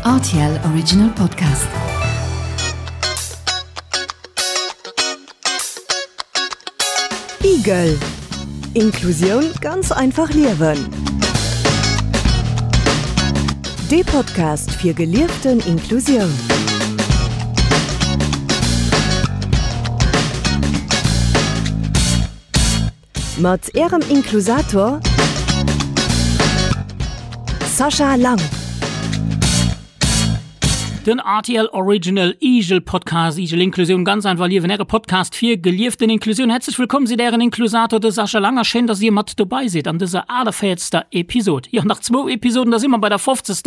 Rtl Original Podcast. Igel Inklusioun ganz einfach liewen. Dee Podcast fir gelieften Inklusioun. Mat Ärem Inklusator Sascha Lang. Den rtl Original Igel Podcast, Igel Inklusioun, ganz einfach liewen, Äre Podcast fir gelieften Inklusioun. Häerzlech wëllkomm seet Ären Inklusator, de Sascha Lang, a schéin, dass Dir mat dobei sidd an dëser 48. Episod. Jo, nach zwou Episoden, da si mer bei der 50.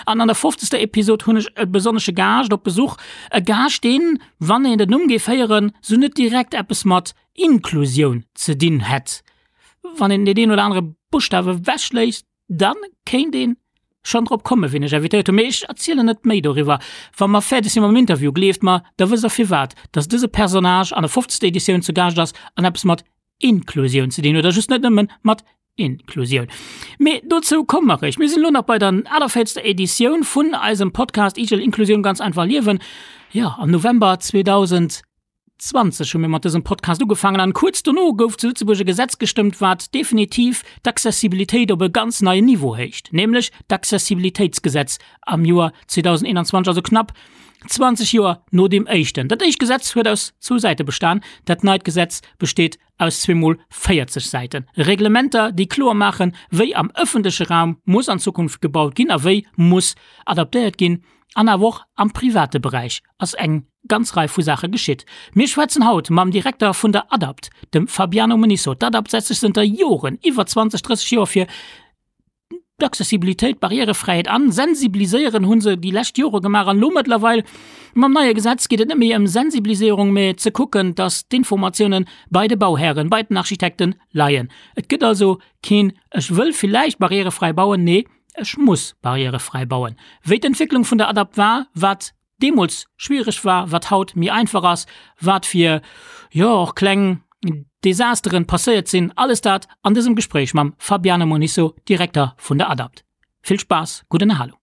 An an der 50. Episod hunn ech e besonnesche Gaascht op Besuch. E Gaascht, deen, wann een den Numm géif héieren, sou net direkt eppes mat Inklusioun ze dinn hätt. Wann een deen een oder anere Buschtaf ewechléisst, da kéint ee schonn drop kommen, wien ech invitéiert hunn. Mee ech erzielen net méi doriwwer. Wa mer fäerdeg si mam Interview, gleeft mer, da wësst der firwat, dass dëse Personnage an der fofzegster Editioun zu Gaascht ass an eppes mat Inklusioun ze dinn huet, a just net nëmmen mat Inklusioun. Mee dozou komme mer eréischt. Mir sinn elo nach bei der 48. Editioun vun eisem Podcast Igel Inklusioun ganz einfach liewen. Jo, am November 2000. 20 hu mir mat dësem Podcast ugefaangen an kuerz dono gouf zu Lëtzebuerg e Gesetz gestëmmt, wat definitiv d'Accessibilitéit op e ganz neien Niveau héicht, nämlech d'Accessibilitéitsgesetz am Joer 2021, also knapp 20 Joer no deem éischten. Dat éischt Gesetz huet aus zwou Säite bestan, dat neit Gesetz besteet aus zweemol 40 Säiten. Reglementer, déi kloer maachen, wéi am ëffentleche Raum muss an Zukunft gebaut ginn a wéi muss adaptéiert ginn, an awer och am private Beräich ass eng ganz Rei vu Saache geschitt. Mir schwätzen haut mam Direkter vun der ADAPT, dem Fabiano Munisso. D'ADAPT setzt sech zënter Joren, iwwer 20, 30 Joer, fir d'Accessibilitéit, d'Barrièrefräiheet an. Sensibiliséieren hu se déi lescht Jore gemaach an elo mëttlerweil mam neie Gesetz geet et net méi ëm Sensibiliséierung, mä ze kucken, datt d'Informatiounen bei de Bauhären, bei den Architekten leien. Et gëtt also keen Ech wëll villäicht barrièrefräi bauen, nee, ech muss barrièrefräi bauen. Wéi d'Entwécklung vun der ADAPT war, wat deemools schwiereg war, wat haut méi einfach ass, wat fir, jo, och kleng Desasteren passéiert sinn, alles dat an dësem Gespréich mam Fabiano Monisso, Direkter vun der ADAPT. Vill Spaass, gutt Ënnerhalung.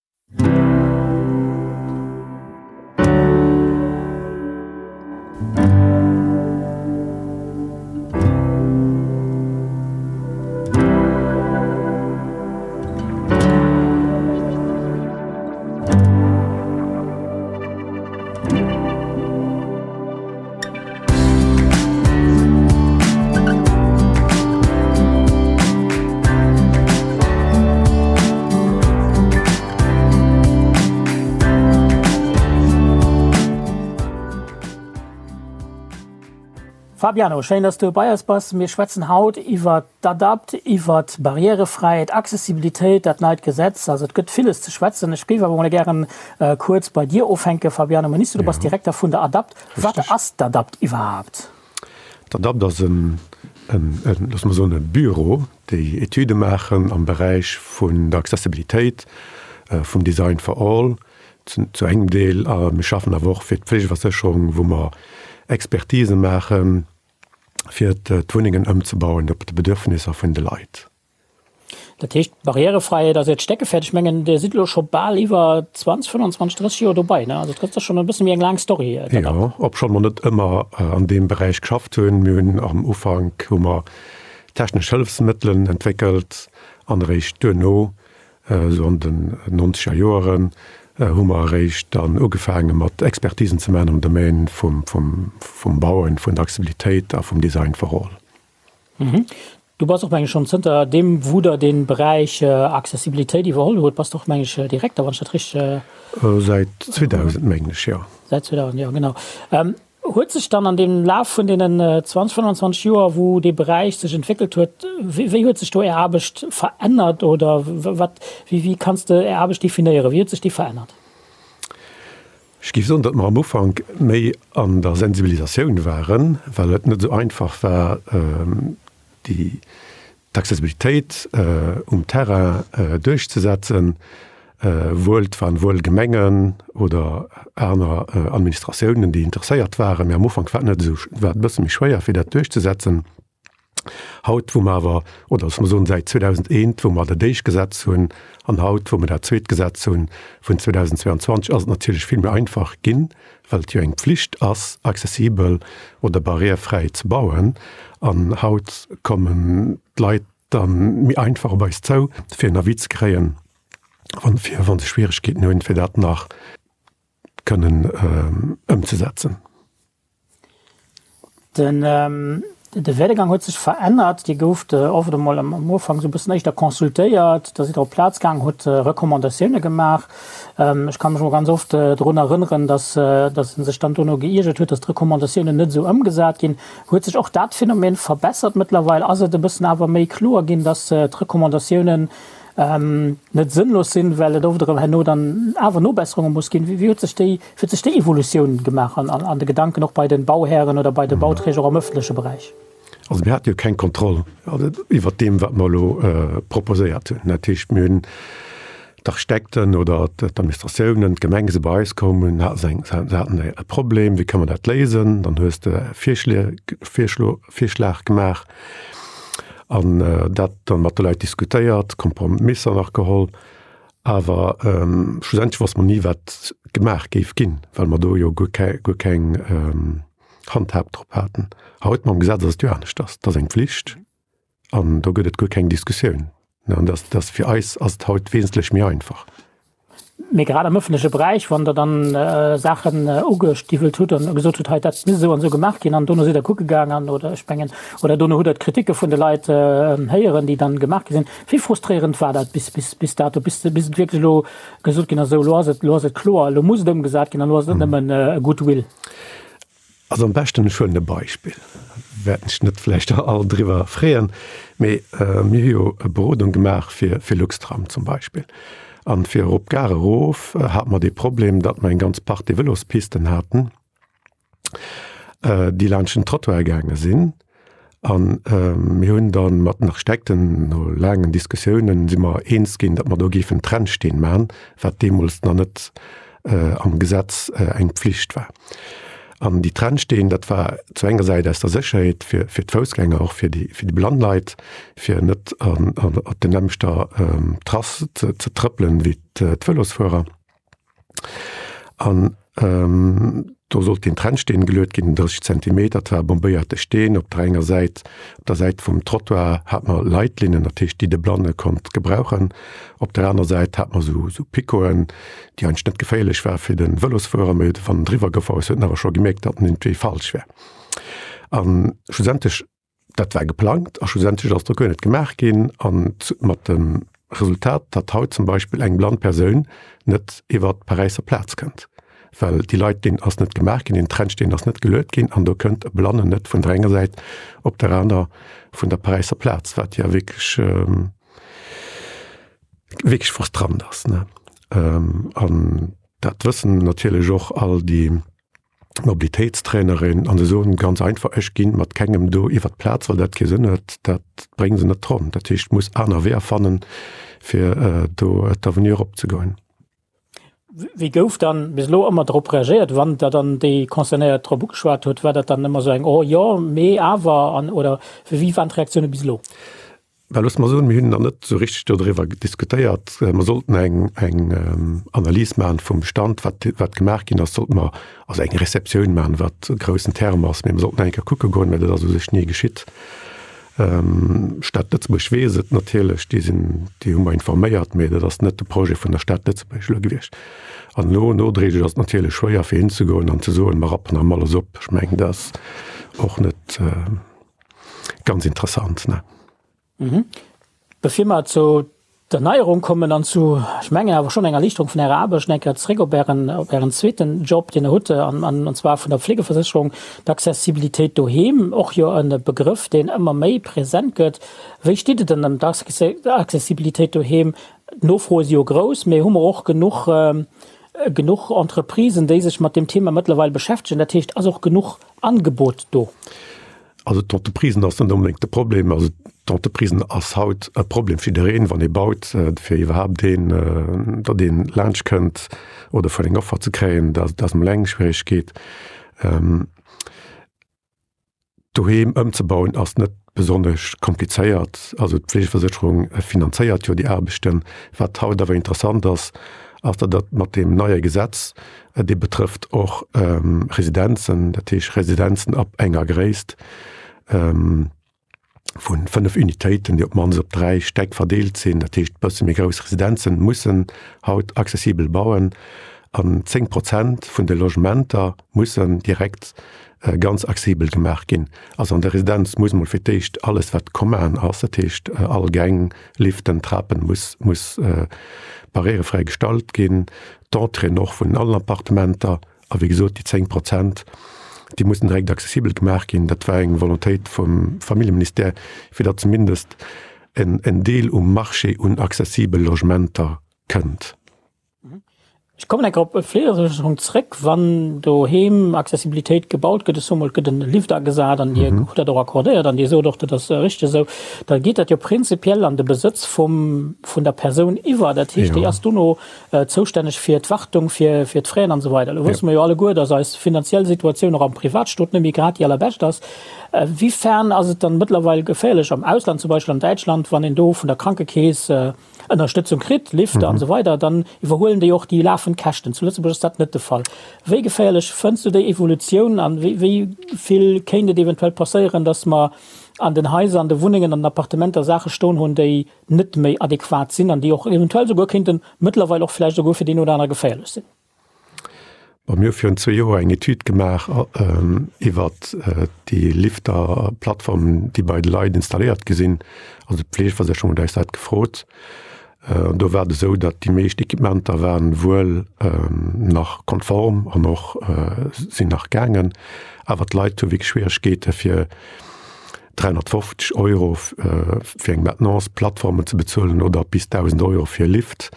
Fabiano, schéin, dass du bei eis bass. Mir schwätzen haut iwwer d'ADAPT, iwwer d'Barrièrefräiheet, Accessibilitéit, dat neit Gesetz. Also et gëtt villes ze schwätzen. Ech géif awer mol gären kuerz bei dir ufänken, Fabiano Monisso. Du bass Direkter vun der ADAPT. Wat ass d'ADAPT iwwerhaapt? D'ADAPT ass en, loosse mer soen, e Büro, déi Etüde maachen am Beräich vun der Accessibilitéit, vum Design for All zu engem Deel. A mir schaffen awer och fir d'Fleegeversécherung, wou mer Expertise maachen, fir d'Wunnengen ëmzebauen op de Bedürfnisser vun de Leit. Dat heescht, Barrièrefräiheet ass Äert Steckefäerd. Ech mengen, Dir sidd elo scho bal iwwer 20, 25, 30 Joer dobei, ne? Also et ass schonn e bësse méi eng laang Story. Jo, obschonn mer net ëmmer an deem Beräich geschafft hunn. Mir hunn am Ufank hu mer technesch Hëllefsmëttelen entwéckelt an eréischt duerno Esou an den nonzeger Joeren hu mer eréischt dann ugefaange mat Expertisen ze maachen am Domaine vum Bauen, vun der Accessibilitéit a vum Design for all. Du bass och, meng ech, schonn zënter deem wou der dee Beräich Accessibilitéit iwwerholl hutt, bass de och, meng ech, Direkter, wann ech dat richteg. Säit 2000, mengen ech, jo. Säit 2000, jo, genau. Huet sech dann an deem Laf vun deenen 20, 25 Joer, wou dee Beräich sech entwéckelt huet, wéi huet sech do Är Aarbecht verännert oder wat, wéi kanns de Är Aarbecht definéieren, wéi huet sech déi verännert? Ech géif soen, datt mer am Ufank méi an der Sensibilisatioun waren, well et net esou einfach war, déi d'Accessibilitéit um Terrain duerchzesetzen, wuel et waren wuel Gemengen oder aner Administratiounen, déi interesséiert waren, mee am Ufank war et net esou, war et e bësse méi schwéier fir dat duerchzesetzen. Haut, wou mer awer, oder loosse mer soen, säit 2001, wou mer dat éischt Gesetz hunn, an haut, wou mer dat zweet Gesetz hunn vun 2022, ass et natierlech vill méi einfach ginn, well et jo eng Pflicht ass, accessibel oder barrièrefräi ze bauen. An haut kommen d'Leit da méi einfach op eis zou, fir en Avis ze kréien, wann, fir, wa se Schwierigkeeten hunn, fir dat nach kënnen ëmzesetzen. Den de Werdegang huet sech verännert. Dir gouft oft emol am Ufank esou e bëssen éischter consultéiert, da sidd Der op d'Plaz gaang, hutt Recommandatioune gemaach. Ech ka mech emol ganz oft drun erënneren, datt datt ee sech dann dono geiergert huet, datt d'Recommandatiounen net esou ëmgesat ginn. Huet sech och dat Phänomen verbessert mëttlerweil? Ass et e bëssen awer méi kloer ginn, datt d'Recommandatiounen net sënnlos sinn, well et oft erëm herno dann awer Nobesserunge muss ginn. Wéi huet sech déi, wéi huet sech déi Evolutioun gemaach an, an de Gedanken och bei de Bauhären oder bei de Bauträger och am ëffentleche Beräich? Also mir hate jo keng Kontroll iwwert deem, wat mer elo proposéiert hunn. Dat heescht, mir hunn d'Architekten oder d'Administratiounen, d'Gemenge si bei eis komm, hunn, hate se eng, se haten e Problem, wéi kënne mer dat léisen? Dann hues de Virschlie, Virschlo, Virschlag gemaach. An dat dann mat de Leit diskutéiert, Kompromisser nach geholl. Awer schlussendlech wosste mer ni, wat gemaach géif ginn, well mer do jo guer guer keng Handhab drop haten. Haut mam Gesetz ass et jo aneschters. Et ass eng Pflicht an do gëtt et guer keng Diskussioun. An dat ass fir eis ass et haut wesentlech méi einfach. Mee grad am ëffentleche Beräich, wann Der dann Saachen ugestiwwelt hutt an gesot hutt, hei dat misst esou an esou gemaach ginn, an dono sidd Der kucke gaang an, oder ech mengen, oder dono hutt Der d'Kriticke vun de Leit héieren, déi dann gemaach gi sinn. Wéi frustréierend war dat bis, bis, bis dato, bis, bis et wierklech elo gesot ginn ass, esou elo ass et, elo ass et kloer, elo muss et ëmgesat ginn an elo ass et net nëmmen e Goodwill? Also am beschten, ech huelen e Beispill, wäerten sech net vläicht all driwwer freeën, mee mir hu jo e Berodung gemaach fir fir Luxtram zum Beispill. An fir erop d'Gare erof hate mer dee Problem, datt mer eng ganz Partie Vëlospisten haten, déi laanscht den Trottoir gaange sinn. An mir hunn da mat den Architekten no laangen Diskussiounen si mer eens ginn, datt mer do géifen Trennsteen maachen, wat deemools nach net am Gesetz eng Pflicht war. An déi Trennsteen, dat war zu enger Säit aus der Sécherheet fir fir d'Foussgänger, och fir déi fir déi blann Leit, fir net an op der nämmlechter Trass ze ze trëppelen wéi d'Vëlosfuerer. An do sollt deen Trennsteen geluet ginn, 30 Zentimeter, dat war e bombéierte Steen. Op der enger Säit, op der Säit vum Trottoir hat mer Leitlinnen, dat heescht déi de Blanne konnt gebrauchen. Op der aner Säit hat mer esou esou Picoten, déi eigentlech net geféierlech war fir de Vëlosfuerer, mee wann en driwwer gefuer ass, huet en awer scho gemierkt, datt en iergendwéi falsch war. A schlussendlech Dat war geplangt a schlussendlech ass do guer net gemaach ginn an mat dem Resultat, datt haut zum Beispill eng blann Persoun net iwwer d'Paräisser Plaz kënnt, well déi Leitlinn ass net gemaach ginn, deen Trennsteen ass net geluet ginn an do kënnt e Blannen net vun der enger Säit op der aner vun der Paräisser Plaz, wat jo wierklech, wierklech frustrant ass, ne. An dat wëssen natierlech och all déi Mobilitéitstrainerin an se soen ganz einfach, ech ginn mat kengem do iwwert d'Plaz, well dat kee Sënn huet, dat brénge se net ronn. Dat heescht, ech muss aner Weeër fannen, fir do d'Avenue eropzegoen. Wéi gouf dann bis elo ëmmer drop reagéiert, wann Der dann déi Concernéiert drop ugeschwat hutt? War dat dann ëmmer esou eng Oh jo, mee awer an oder wéi waren d'Reaktioune bis elo? Well loosse mer soen, mir hunn nach net esou richteg dodriwwer diskutéiert. Mer sollten eng, eng Analys maachen vum Bestand, wat, wat gemaach ginn ass, sollte mer also eng Receptioun maachen, wat e groussen Term ass, mee mer sollten eng Kéier kucke goen, mä dat ass u sech ni geschitt. D'Stad Lëtzebuerg weess et natierlech, déi sinn, déi hu mer informéiert, mee dat ass net de Projet vun der Stad Lëtzebuerg elo gewiescht. An elo nodréiglech ass et natierlech schwéier fir hinzegoen an ze soen, mer rappen erëm alles op. Ech mengen, dat ass och net. Ganz interessant, ne? Mhm. Bevir mer zu der Neierung kommen an zu, ech mengen awer schonn enger Erliichterung vun Ärer Aarbecht, eng Kéier zréck op Ären, op Ären zweeten Job, deen Der hutt, an, an, an zwar vun der Fleegeversécherung, d'Accessibilitéit doheem, och jo e Begrëff, deen ëmmer méi present gëtt. Wéi steet et denn ëm d'Accessibilitéit doheem? D'Nofroe si jo grouss, mee hu mer och genuch, genuch Entreprisen, déi sech mat deem Thema mëttlerweil beschäftegen? Dat heescht, ass och genuch Angebot do? Also d'Entreprisen ass net onbedéngt de Problem. Also d'Entreprisen ass haut e Problem fir jiddereen, wann ee baut, fir iwwerhaapt een, datt een laanscht kënnt oder fir eng Offer ze kréien, dat ass emol eng Schwieregkeet. Doheem ëmzebauen ass net. besonnesch komplizéiert. Also d'Fleegeversécherung finanzéiert jo déi Aarbechten. Wat haut awer interessant ass, ass datt dat mat deem neie Gesetz, dee betrëfft och Residenzen, dat heescht Residenzen ab enger Gréisst vu 5 Unitéiten, déi op d'mannst op 3 Stäck verdeelt sinn, dat heescht bësse méi grouss Residenzen, mussen haut accessibel bauen an 10 Prozent vun de Logementer mussen direkt ganz accessibel gemaach ginn. Also an der Residenz muss mol fir d'éischt alles wat commun ass, dat heescht all Gäng, Liften, Trapen, muss muss barrièrefräi gestalt ginn, d'Entréeën och vun allen Appartementer a wéi gesot déi 10 Prozent, déi mussen direkt accessibel gemaach ginn. Dat war eng Volontéit vum Familljeministère, fir datt zumindest en en Deel um Marché un accessibel Logementer kënnt. Ech kommen eng Kéier op d'Fleegesécherung zréck. Wann doheem Accessibilitéit gebaut gëtt, ech soe mol, et gëtt en Lift agesat an Dir hutt dat och accordéiert an Dir sot och, dat ass richteg esou, da geet dat jo prinzipiell an de Besëtz vum, vun der Persoun iwwer. Dat heescht, déi ass dono zoustänneg fir d'Wartung, fir, fir d'Fraisen an esou weider. Elo wësse mer jo alleguer, dass eis finanziell Situatioun och am Privatstot net méi grad déi allerbescht ass. Wéifern ass et dann mëttlerweil geféierlech am Ausland, zum Beispill an Däitschland, wann een do vun der Krankekeess, Ënnerstëtzung kritt, Lifter an esou weider, dann iwwerhuelen déi och déi lafend Käschten. Zu Lëtzebuerg ass dat net de Fall. Wéi geféierlech fënns du déi Evolutioun an wéi wéi vill kéint et eventuell passéieren, datt mer an den Haiser, an de Wunnengen, an den Appartementer Saache stoen hunn, déi net méi adequat sinn an déi och eventuell souguer kéinten mëttlerweil och vläicht souguer fir deen oder anere geféierlech sinn? Bon, mir hu virun zwee Joer eng Etüd gemaach iwwert déi Lifter-Plattformen, déi bei de Leit installéiert gi sinn. Also d'Fleegeversécherung huet eis dat gefrot. An do war et esou, datt déi meescht Equipementer waren wuel nach konform an och sinn nach gaangen, awer d'Leit hu wierklech Schwieregkeete fir 350 Euro fir eng Maintenance, Plattformen ze bezuelen oder bis 1.000 Euro fir e Lift.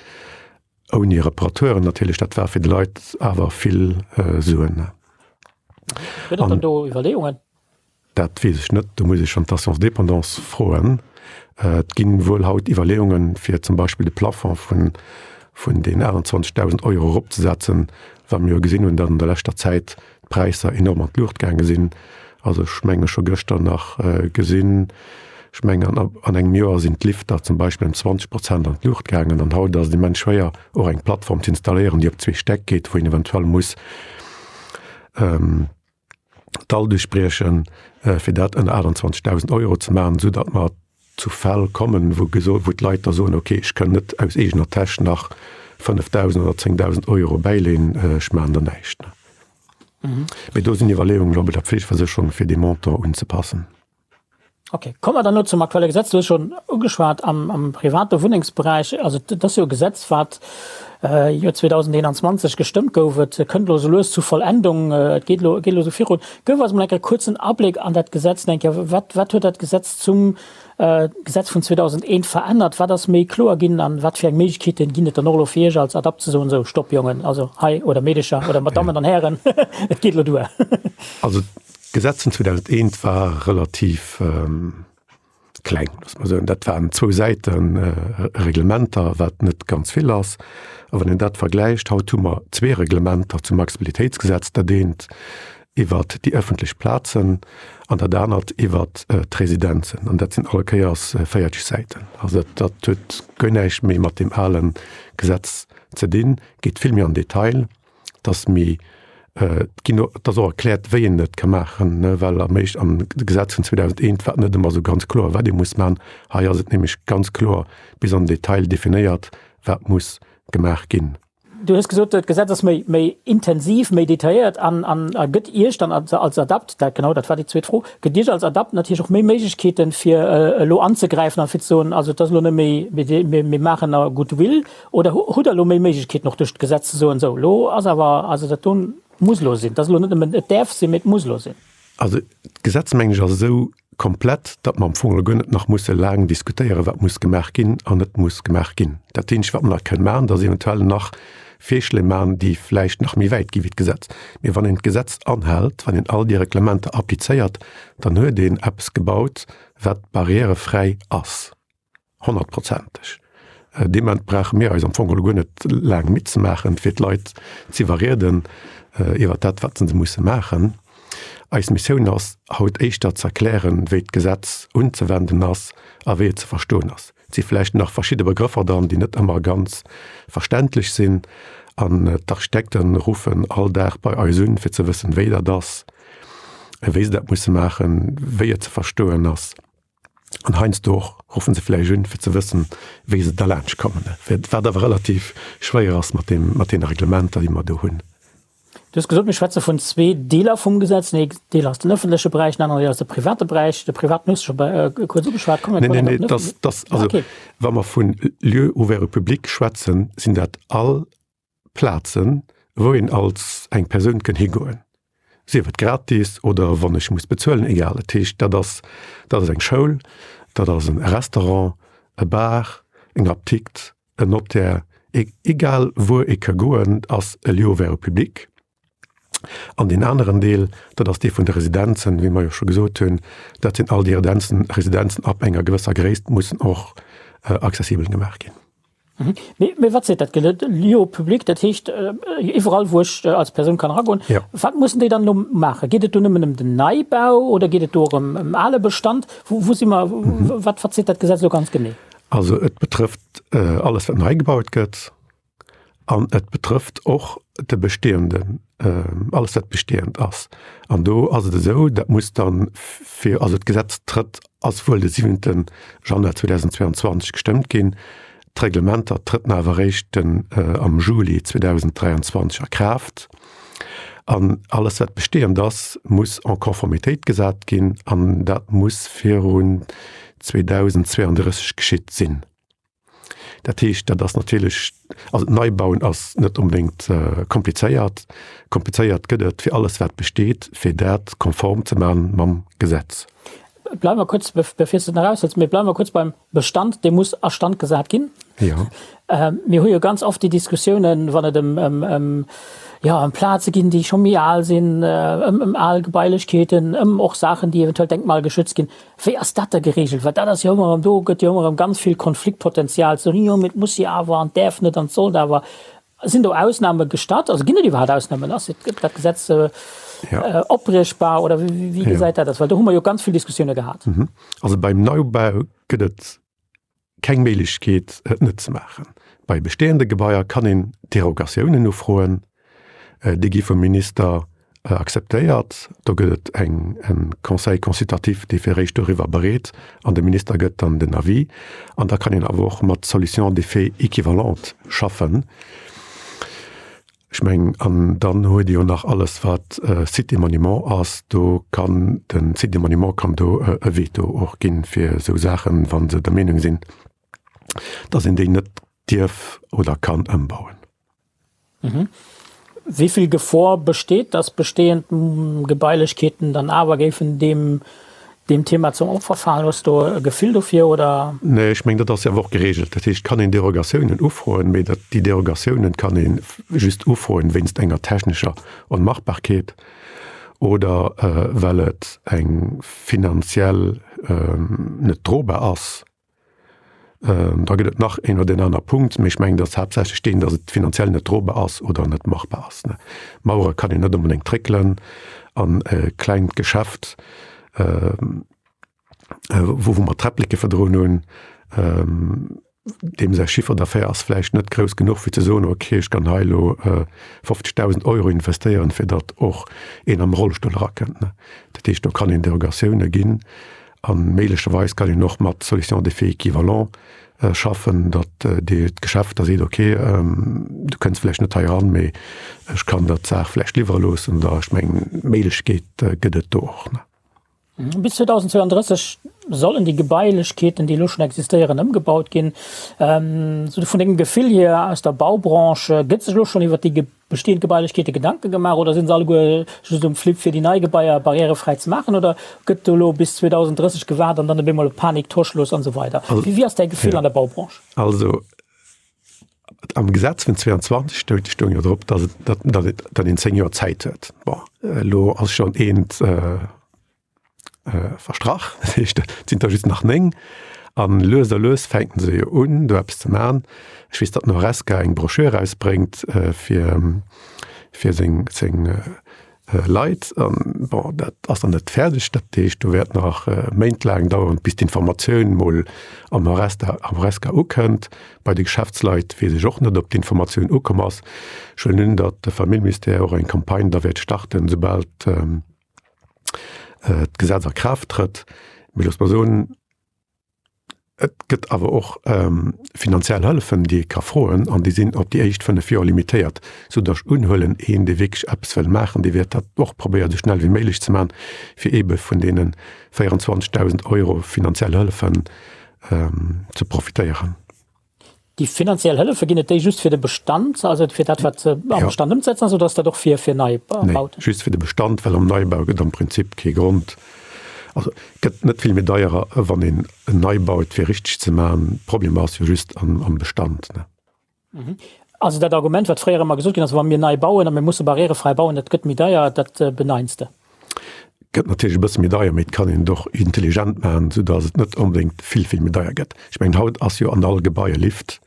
Ouni Reparateuren natierlech, dat war fir de Leit awer vill Suen. Gëtt et dann do Iwwerleeungen? Dat weess ech net, do muss ech schonn d'Assurance dépendance froen. Et gi wuel haut Iwwerleeungen, fir zum Beispill de Plafond vun vun den 28.000 Euro eropzesetzen, well mir jo gesinn hunn, datt an der leschter Zäit d'Präisser enorm an d'Luucht gaange sinn. Also ech menge scho gëschter nach gesinn, ech mengen an an engem Joer sinn d'Lifter zum Beispill ëm 20 Prozent an d'Luucht gaangen an haut ass et immens schwéier och eng Plattform ze installéieren, déi op zwee Stäck geet, wou een eventuell muss d'Dall duerchbriechen, fir dat ënner 28.000 Euro ze maachen, esou datt mer zu Fäll kommen, wou gesot, wou d'Leit da soen, okay, ech kënn net aus eegener Täsch nach 5.000 oder 10.000 Euro bäileen, ech maachen da näischt. Mee do sinn Iwwerleeungen elo bei der Pflegeversécherung, fir dee Montant unzepassen. Okay, komme mer dann elo zum aktuelle Gesetz. Du hues schonn ugeschwat am, am private Wunnengsberäich, also dat ass jo e Gesetz, wat Joer 2021 gestëmmt gouf. Et kënnt elo sou lues zu Vollendung, et geet elo, geet elo sou virun. Gëff eis mol eng Kéier e kuerzen Abléck an dat Gesetz, eng Kéier, wat, wat huet dat Gesetz zum Gesetz vun 2001 verännert? Wat ass méi kloer ginn an wat fir eng Méiglechkeeten ginn et dann och elo fir Iech als Adapt ze soen, sou, Stopp Jongen, also hei, oder Meedecher oder Madammen an Hären, et geet elo duer? Also d'Gesetz vun 2001 war relativ kleng, loosse mer soen. Dat waren zwou Säite Reglementer, wat net ganz vill ass. A wann een dat vergläicht, haut hu mer zwee Reglementer zum Accessibilitéitsgesetz, dat eent iwwert déi ëffentlech Plazen an dat anert iwwert d'Residenzen. An dat sinn all Kéiers 40 Säiten. Also dat, dat huet guer näischt méi mat deem ale Gesetz ze dinn, geet vill méi an Detail. Dass méi, et ginn och, et ass och erkläert, wéi een et ka maachen, ne, well am éischt, am Gesetz vun 2001 war et net ëmmer esou ganz kloer, wat ee muss maachen. Hei ass et nämlech ganz kloer bis an den Detail definéiert, wat muss gemaach ginn. Du hues gesot, d'Gesetz ass méi, méi intensiv, méi detailléiert an, an a gëtt Iech dann als, als Adapt, dat, genau, dat war déi zweet Fro, gëtt Iech als Adapt natierlech och méi Méiglechkeeten, fir elo anzegräifen an fir ze soen, also et ass elo net méi, mir, mir, mir maachen a Goodwill, oder hutt Der elo méi Méiglechkeeten och duerch d'Gesetz ze soen, sou, elo ass awer, also dat do muss elo sinn, et ass elo net nëmmen, et däerf sinn, mee et muss elo sinn? Also d'Gesetz, mengen ech, ass esou komplett, datt mer am Fong elo guer net nach musse laang diskutéieren, wat muss gemaach ginn an net muss gemaach ginn. Dat eenzegt, wat mer nach kënnen maachen, dat ass eventuell nach Virschléi maachen, déi vläicht nach méi wäit gi wéi d'Gesetz. Mee wann een d'Gesetz anhält, wann een all déi Reglementer applizéiert, dann huet een eppes gebaut, wat barrièrefräi ass. Honnertprozenteg. Dee Moment brauche mir eis am Fong geholl guer net laang midd ze maachen, fir d'Leit z'iwwerrieden iwwer dat, wat se musse maachen. Eis Missioun ass haut éischter ze erklären, wéi d'Gesetz unzewenden ass a wéi et ze verstoen ass. Et si vläicht nach verschidde Begrëffer dran, déi net ëmmer ganz verständlech sinn. An d'Architekte ruffen all Dag bei eis un, fir ze wëssen, wéi dat ass, wéi se dat musse maachen, wéi et ze verstoen ass. An heiansdo och ruffen se vläicht un, fir ze wëssen, wéi se derlaanscht kommen, wat awer relativ schwéier ass mat deem, mat deene Reglementer, déi mer do hunn. Du hues gesot, mir schwätze vun zwee Deeler vum Gesetz. Den een Deel ass den ëffentleche Beräich, den aneren Deel ass de private Beräich. De privaten hues du scho kuerz ugeschwat. Kommen wir nee, nee, nee, das, das, also, okay. Wa mer vun Lieux ouverts au public schwätzen, sinn dat all Plazen, wou een als eng Persoun kënn higoen, sief et gratis oder wann ech muss bezuelen, egal. Dat heescht, dat ass, dat ass eng Schoul, dat ass e Restaurant, e Bar, eng Apdikt, en Notaire, egal wuer ee ka goen, ass e Lieu ouvert au public. An deen aneren Deel, dat ass dee vun de Residenzen, wéi mer jo scho gesot hunn, dat sinn all déi Residenzen, Residenzen ab enger gewësser Gréisst mussen och accessibel gemaach ginn. Mee, mee wat seet dat Gesetz? Lieu public, dat heescht iwwerall, wou ech als Persoun kann eragoen. Ja. Wat mussen déi dann elo maachen? Geet et do nëmmen ëm den Neibau oder geet et do och ëm, ëm ale Bestand? Wou, wou si mer, wat, wat seet dat Gesetz elo ganz genee? Also et betrëfft alles, wat nei gebaut gëtt. An et betrëfft och de bestehenden, alles wat bestehend ass. An do ass et esou, dat muss dann fir, also d'Gesetz trëtt, ass wuel de siwente Januar 2022 gestëmmt ginn, d'Reglementer trëtten awer eréischt den am Juli 2023 a Kraaft. An alles wat bestehend ass, muss en Conformitéit gesat ginn an dat muss virun 2032 geschitt sinn. Dat heescht, dat ass natierlech, also d'Neibauen ass net onbedéngt komplizéiert. Komplizéiert gëtt et fir alles wat besteet, fir dat konform ze maachen mam Gesetz. Bleiwe mer kuerz, bevir s de et nach aushëls, mee bleiwe mer kuerz beim Bestand, dee muss a Stand gesat ginn. Jo. Mir hu jo ganz oft déi Diskussiounen, wann et ëm, ëm, ëm, jo, ëm Plaze ginn, déi scho méi al sinn, ëm, ëm al Gebailechkeeten, ëm och Saachen, déi eventuell denkmalgeschützt ginn. Wéi ass dat da geregelt? Well dat ass jo ëmmer erëm, do gëtt jo ëmmer erëm ganz vill Konfliktpotenzial, ze soen, jo, mee et muss jo awer an et däerf net an et sollt awer. Sinn do Ausname gestatt? Also ginn et iwwerhaapt Ausnamen? Ass dat Gesetz opbriechbar oder wéi gesäit dat aus? Well do hu mer jo ganz vill Diskussioune gehat. Also beim Neubau gëtt et keng Méiglechkeet, et net ze maachen. Bei bestehende Gebaier kann een Derogatiounen ufroen. Déi gi vum Minister akzeptéiert. Do gëtt et eng, e Conseil consultatif, dee fir d'éischt doriwwer bereet an de Minister gëtt dann den Avis. An da kann een awer och mat Solutions d'effet équivalentes schaffen. Ech mengen, an dann huet Dir jo nach alles, wat Site et Monument ass. Do kann de Site et Monument kann do e Veto och ginn fir esou Saachen, wa se der Meenung sinn, dass een déi net dierf oder kann ëmbauen. Wéi vill Gefor besteet, dass bestehend Gebailechkeeten dann awer géifen deem deem Thema zum Opfer falen? Hues do e Gefill dofir, oder? Nee, ech mengen, dat ass jo awer och geregelt. Dat heescht, et kann een Derogatiounen ufroen, mee dat, déi Derogatiounen kann ee just ufroen wéinst enger technescher Onmachbarkeet oder well et eng finanziell net drobar ass. Da gëtt et nach een oder deen aner Punkt, mee ech mengen, datt haaptsächlech deen, datt et finanziell net drobar ass oder net machbar ass. Mauere kann een net onbedéngt dréckelen an e klengt Geschäft, wou mer Träppleke virdrun hunn, deem säi Chiffre d'affaires ass vläicht net grouss genuch, fir ze soen, okay, ech kann hei elo 50.000 Euro investéieren, fir datt och een am Rollstull erakënnt. Dat heescht, do kann een Derogatioune ginn. A méiglecherweis kann een och mat Solutions d'effet équivalent schaffen, datt d'Geschäft da seet, okay, du kënns vläicht net hei eran, mee ech kann der d'Saach vläicht liwwere loossen. Oder ech mengen, Méiglechkeet gëtt et do och. Bis 2032 sollen déi Gebailechkeeten, déi elo schonn existéieren, ëmgebaut ginn. Sou vun dengem Gefill hier aus der Baubranche, gëtt sech elo schonn iwwert déi Bestehend Gebailechkeete Gedanke gemaach oder sinn se alleguer just um Flipp fir déi nei Gebaier barrièrefräi ze maachen oder gëtt do elo bis 2030 gewaart an dann op eemol Panik, Torschluss an esou weider? Wéi ass däi Gefill an der Baubranche? Also am Gesetz vun 22 stoung stoung jo drop, datt et datt datt et datt een 10 Joer Zäit huet. Bon, elo ass schonn eent verstrach, dat heescht et sinn der just nach 9 an lues a lues fänken se jo un do eppes ze man. Ech weess, datt den Horesca eng Broschür erausbréngt fir fir seng seng. Leit. An, bon, dat ass nach net fäerdeg. Dat heescht, do wäert nach méintlaang daueren, bis d'Informatioun mol am Horesca, am Horesca ukënnt. Bei de Geschäftsleit weess ech och net, ob d'Informatioun ukomm ass. Ech huelen un, datt de Familljeministère och eng Campagne da wäert starten, soubal d'Gesetz a Kraaft trëtt. Mee looss mer soen, Et gëtt awer och finanziell Hëllefen, déi ee ka froen, an déi sinn op déi éischt 5 Joer limitéiert, soudatt ech unhuelen, een, dee wierklech eppes wëll maachen, dee wäert dat och probéieren, esou schnell wéi méiglech ze maachen, fir eebe vun deene 24.000 Euro finanziell Hëllefen ze profitéieren. Déi finanziell Hëllefe, ginn et déi just fir de Bestand, also fir dat, wat am Bestand ëmzesetzen ass, oder ass dat och fir, fir Neibauten? Nee, just fir de Bestand, well am Neibau gëtt am Prinzip kee Grond, also gëtt net vill méi deier, wann een en nei baut, fir richteg ze maachen. Problem ass jo just am Bestand. Also dat Argument, wat fréier ëmmer gesot ginn ass, wa mir nei bauen a mir musse barrièrefräi bauen, dat gëtt méi deier, dat beneins de? Gëtt natierlech e bësse méi deier, mee et kann een et och intelligent maachen, soudatt et net onbedéngt vill, vill méi deier gëtt. Ech mengen, haut ass jo an all Gebai e Lift.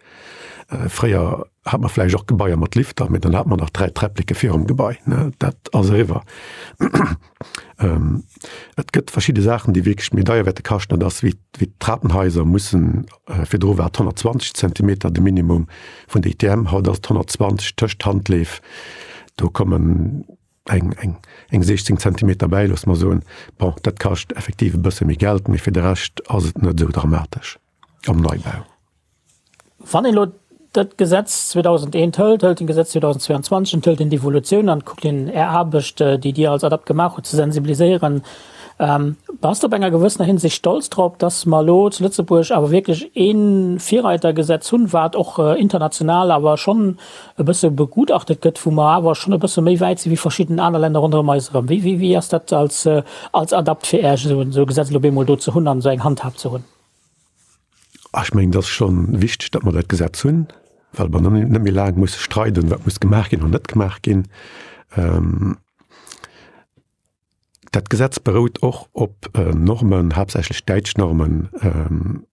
Fréier hat mer vläicht och Gebaier mat Lifter, mee dann hat mer nach 3 Träppleke virum Gebai, ne? Dat ass eriwwer. Et gëtt verschidde Saachen, déi wierklech méi deier wäerte kaschten, dat ass wéi d'Trapenhaiser mussen, virdru war et 120 Zentimeter de Minimum vun der ITM, haut ass et 120 tëscht Handleef, do kommen eng, eng, eng 16 Zentimeter bäi, loosse mer soen. Bon, dat kascht effektiv e bësse méi Geld, mee fir de Rescht ass et net esou dramatesch am Neibau. Wann een elo dat Gesetz 2001 hëlt, hëlt een d'Gesetz 2022 an hëlt een d'Evolutioun an, kuckt een Är Aarbecht, déi Dir als ADAPT gemaach hutt, ze sensibiliséieren, bass de op enger gewëssener Hinsicht stolz drop, dass mer elo zu Lëtzebuerg awer wierklech ee Virreitergesetz hunn, wat och international awer schonn e bësse begutachtet gëtt, wou mer awer schonn e bësse méi wäit si wéi verschidden aner Länner ronderëm eis erëm? Wéi, wéi ass dat als, als ADAPT fir Iech, esou e Gesetz elo op eemol do ze hunn an esou eng Handhab ze hunn? Ech mengen, et ass scho wichteg, datt mer dat Gesetz hunn, well mer net méi laang musse streiden, wat muss gemaach ginn an net gemaach ginn. Dat Gesetz berout och op Normen, haaptsächlech däitsch Normen.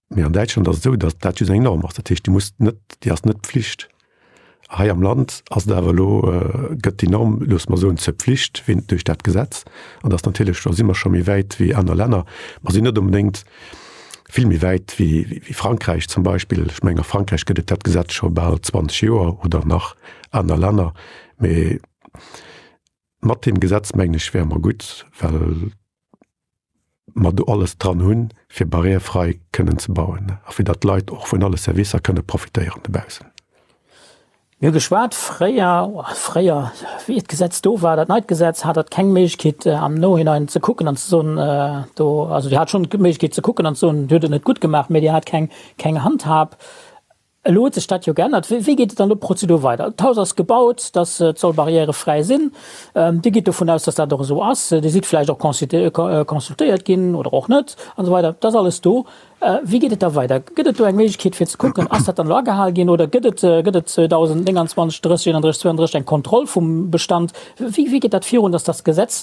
Mee an Däitschland ass et esou, datt dat just eng Norm ass. Dat heescht, déi muss net, déi ass net Pflicht. Hei am Land ass et awer elo, gëtt déi Norm, loosse mer soen, zur Pflicht wéi duerch dat Gesetz. An dat ass natierlech, do si mer scho méi wäit wéi aner Länner. Mer sinn net onbedéngt vill méi wäit wéi Frankräich zum Beispill. Ech mengen, a Frankräich gëtt et dat Gesetz scho bal 20 Joer oder nach aner Länner. Mee mat deem Gesetz, mengen ech, wäre mer gutt, well mer do alles dran hunn, fir barrièrefrei kënnen ze bauen a fir datt d'Leit och vun alle Servicer kënne profitéieren dobaussen. Mir hu geschwat fréier, fréier, wéi d'Gesetz do war, dat neit Gesetz, hat Der keng Méiglechkeet am Nohinein ze kucken an ze soen, do, also Dir hat schonn d'Méiglechkeet ze kucken an ze soen, Dir hutt et net gutt gemaach, mä Dir hat keng, keng Handhab. Elo huet sech dat jo geännert. Wéi geet et dann elo d'Prozedur weider? D'Haus ass gebaut, dass et soll barrièrefräi sinn. Dir gitt dovun aus, dass dat och esou ass. Dir sidd vläicht och consultéiert ginn oder och net an esou weider. Dat ass alles do. Wéi geet et da weider? Gëtt et do eng Méiglechkeet fir ze kucken, ass dat dann elo agehal ginn oder gëtt et gëtt et 2029, 30, 31, 32 eng Kontroll vum Bestand? Wéi wéi geet dat virun, dass dat Gesetz,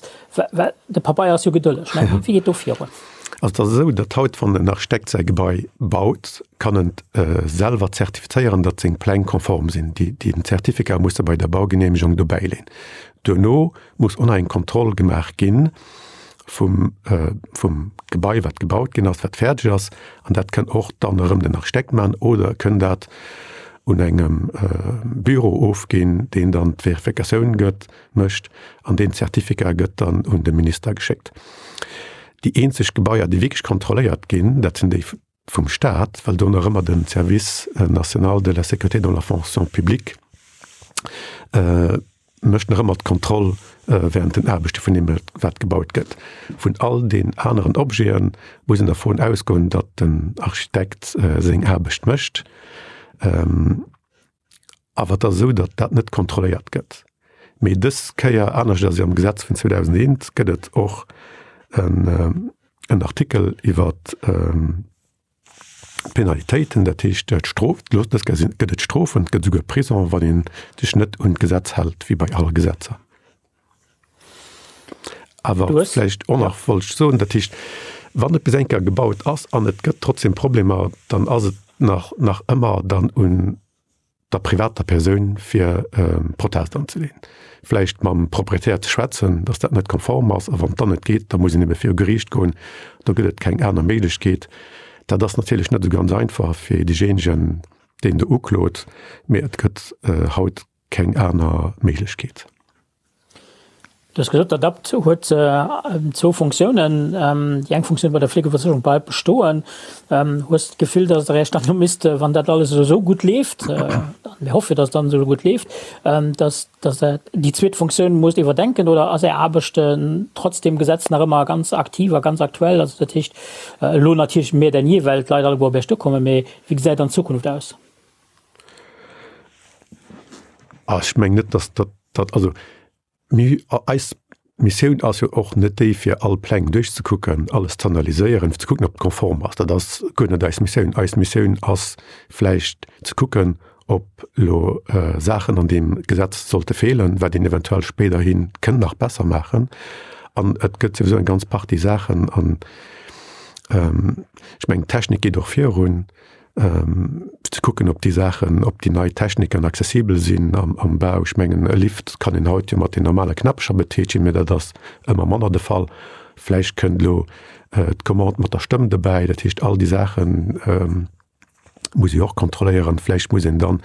well de Pabeier ass jo gedëlleg, ne? Wéi geet do virun? Also et ass esou, datt haut, wann en Architekt säi Gebai baut, kann en selwer zertifizéieren, datt seng Pläng konform sinn. Déi, den Zertificat muss e bei der Baugeneemegung dobäileen. Duerno muss och nach eng Kontroll gemaach gi vum, vum Gebai, wat gebaut ginn ass, wat fäerdeg ass. An dat kënn och dann erëm den Architekt maachen oder e kënn dat un engem Büro ofginn, deen dann d'Verifikatioun gëtt. mécht an deen Zertificat gëtt dann un de Minister geschéckt. Déi eenzeg Gebaier, déi wierklech kontrolléiert ginn, dat sinn déi vum Staat, well do nach ëmmer de Service national de la sécurité dans la fonction publique mécht nach ëmmer d'Kontroll während den Aarbechte vun deem, wat gebaut gëtt. Vun all den aneren Objete muss een dervun ausgoen, datt den Architekt seng Aarbecht mécht. Awer et ass esou, datt dat net kontrolléiert gëtt. Mee dës Kéier, anescht ass jo am Gesetz vun 2001, gëtt et och en Artikel iwwer d'Penalitéiten, dat heescht d'Strof. Dës Kéier gëtt et Strofen, et gëtt esouguer Prison, wann ee sech net un d'Gesetz hält, wéi bei alle Gesetzer. Awer vläicht och nach wollt ech soen, dat heescht, wann et bis eng Kéier gebaut ass an et gëtt trotzdem Problemer, dann ass et nach, nach ëmmer dann un. der privater Persoun fir Protest anzeleeën, vläicht mam Proprietär ze schwätzen, datt dat net konform ass, a wann et dann net geet, da muss een ebe viru Geriicht goen. Do gëtt et keng aner Méiglechkeet. Dat ass natierlech net esou ganz einfach fir deejéinegen, deen do uklot, mee et gëtt haut keng aner Méiglechkeet. Du hues gesot, d'ADAPT huet zwou Funktiounen. Déi eng Funktioun bei der Fleegeversécherung bleift bestoen. Hues de d'Gefill, datt Der Iech dann elo misst, wann dat alles elo esou gutt leeft, a mir hoffe jo, datt et dann esou gutt leeft, datt datt Der déi zweet Funktioun musst iwwerdenken? Oder ass Är Aarbecht trotz deem Gesetz nach ëmmer ganz aktiv a ganz aktuell? Also dat heescht elo natierlech mehr denn je, well d'Leit alleguer op Iech duerkommen, mee wéi gesäit dann d'Zukunft aus? Ech mengen net, datt dat, also mir, eis Missioun ass jo och net déi, fir all Pläng duerchzekucken, alles ze analyséieren, fir ze kucken, ob et konform ass. Dat ass guer net eis Missioun. Eis Missioun ass vläicht ze kucken, ob elo Saachen an deem Gesetz sollte feelen, wat een eventuell spéiderhi kënnt nach besser maachen. An et gëtt souwisou eng ganz Partie Saachen an ech mengen, d'Technik geet och virun. ze kucken, ob déi Saachen, ob déi nei Techniken accessibel sinn am Bau. Ech mengen, e Lift kann een haut jo mat den normale Knäppecher betätigen, mä dat ass ëmmer manner de Fall. Vläicht kënnt elo d'Commande mat der Stëmm dobäi. Dat heescht, all déi Saache muss ee och kontrolléieren. Vläicht muss een dann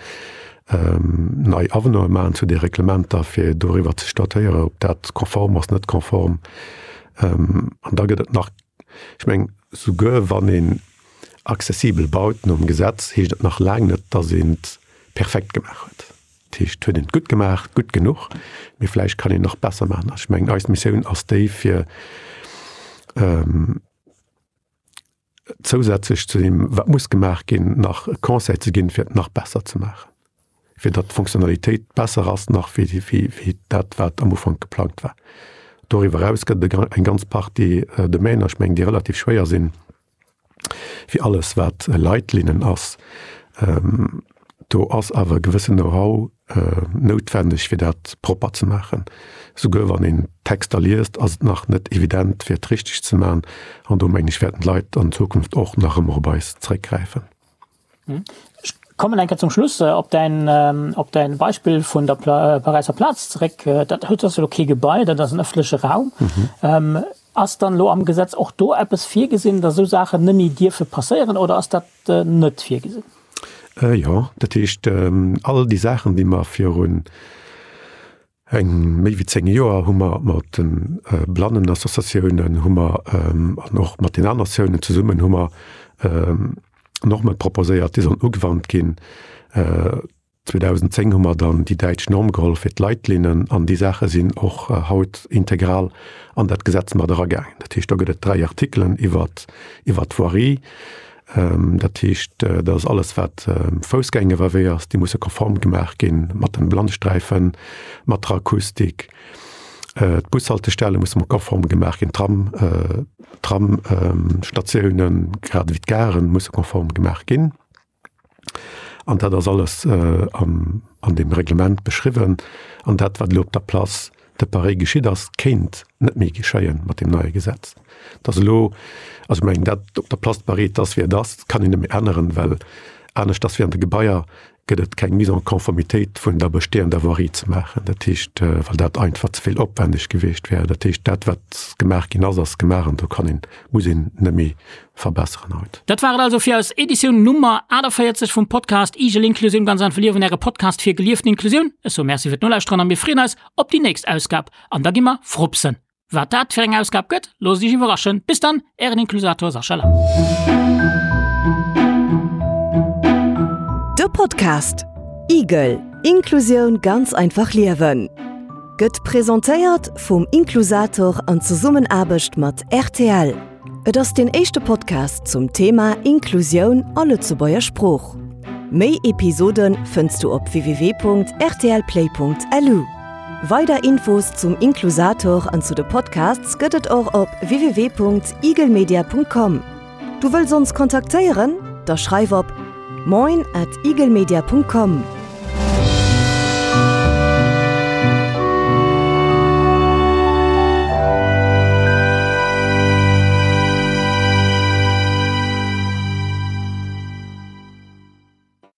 nei Avenante maachen zu de Reglementer, fir doriwwer ze statuéieren, ob dat konform ass, net konform. An da gëtt et nach, ech mengen, souguer wann een Accessibel baut nom Gesetz, heescht et nach laang net, dass een et perfekt gemaach huet. Dat heescht, huet een et gutt gemaach, gutt genuch, mee vläicht kann een nach besser maachen. Ech mengen, eis Missioun ass déi, fir zousätzlech zu deem, wat muss gemaach ginn, nach e Conseil ze ginn, fir et nach besser ze maachen, fir datt d'Fonctionnalitéit besser ass nach wéi dat, wat am Ufank geplangt war. Doriwwer eraus gëtt et eng ganz Partie Domainer, ech mengen, déi relativ schwéier sinn, fir alles wat Leitlinnen ass, do ass awer e gewëssen Know-how noutwenneg fir dat propper ze maachen. Souguer wann een Texter liest, ass et nach net evident fir et richteg ze maachen an do mengen ech wäerten d'Leit an Zukunft och nach ëmmer op eis zréckgräifen. Ech kommen eng Kéier zum Schluss op däin, op däin Beispill vun der Paräisser Plaz zeréck. Dat huet ass elo kee Gebai, dat ass en ëffentleche Raum. Ass dann elo am Gesetz och do eppes virgesinn, datt esou Saachen net méi dierfe passéieren oder ass dat net virgesinn? Jo, dat heescht all déi Saachen, déi mer virun eng méi wéi 10 Joer hu mer mat de Blannenassociatiounen hu mer an och mat den aner Associatiounen zesummen hu mer Norme proposéiert, déi sollen ugewannt ginn. 2010 hu mer dann déi däitsch Norm geholl fir d'Leitlinnen an déi Saache sinn och haut integral an dat Gesetz mat eragaangen. Dat heescht, do gëtt et 3 Artikelen iwwert iwwert d'Voirie. Dat heescht, dat ass alles wat Foussgängeriwwerwee ass, déi musse konform gemaach ginn mat den Blannsträifen, mat der Akustik. D'Bushaltestelle musse mat konform gemaach ginn, d'Tram, d'Tramstatiounen, grad ewéi d'Garen musse konform gemaach ginn. An dat ass alles an deem Reglement beschriwwen. An dat, wat elo op der Place de Paris geschitt ass, kéint net méi geschéie mat deem neie Gesetz. Et ass elo, also ech mengen, dat op der Place de Paris, et ass wéi et ass, dat kann een net méi änneren, well anescht ass wéi an de Gebaier gëtt et keng Mise en conformitéit vun der bestehender Voirie ze maachen. Dat heescht, well dat einfach ze vill opwändeg gewiescht wär. Dat heescht, dat wat gemaach ginn ass, ass gemaach an do kann een, muss een net méi verbesseren haut. Dat war et also fir eis Editioun Nummer 48 vum Podcast Igel Inklusioun ganz einfach liewen, äre Podcast fir gelieften Inklusioun. Ech soe Merci fir d'Nolauschteren a mir freeën eis op déi nächst Ausgab an da gi mer frupsen. Wat dat fir eng Ausgab gëtt, loosst iech iwwerraschen. Bis dann, ären Inklusator Sascha Lang. De Podcast Igel, Inklusioun ganz einfach liewen gëtt presentéiert vum Inklusator an Zesummenaarbecht mat rtl. Et ass deen éischte Podcast zum Thema Inklusioun a Lëtzebuerger Sprooch. Méi Episode fënns du op www.rtlplay.lu. Weider Infos zum Inklusator an zu de Podcasts gëtt et och op www.eaglemedia.com. Du wëlls ons kontaktéieren? Da schreif op moin at eaglemedia.com.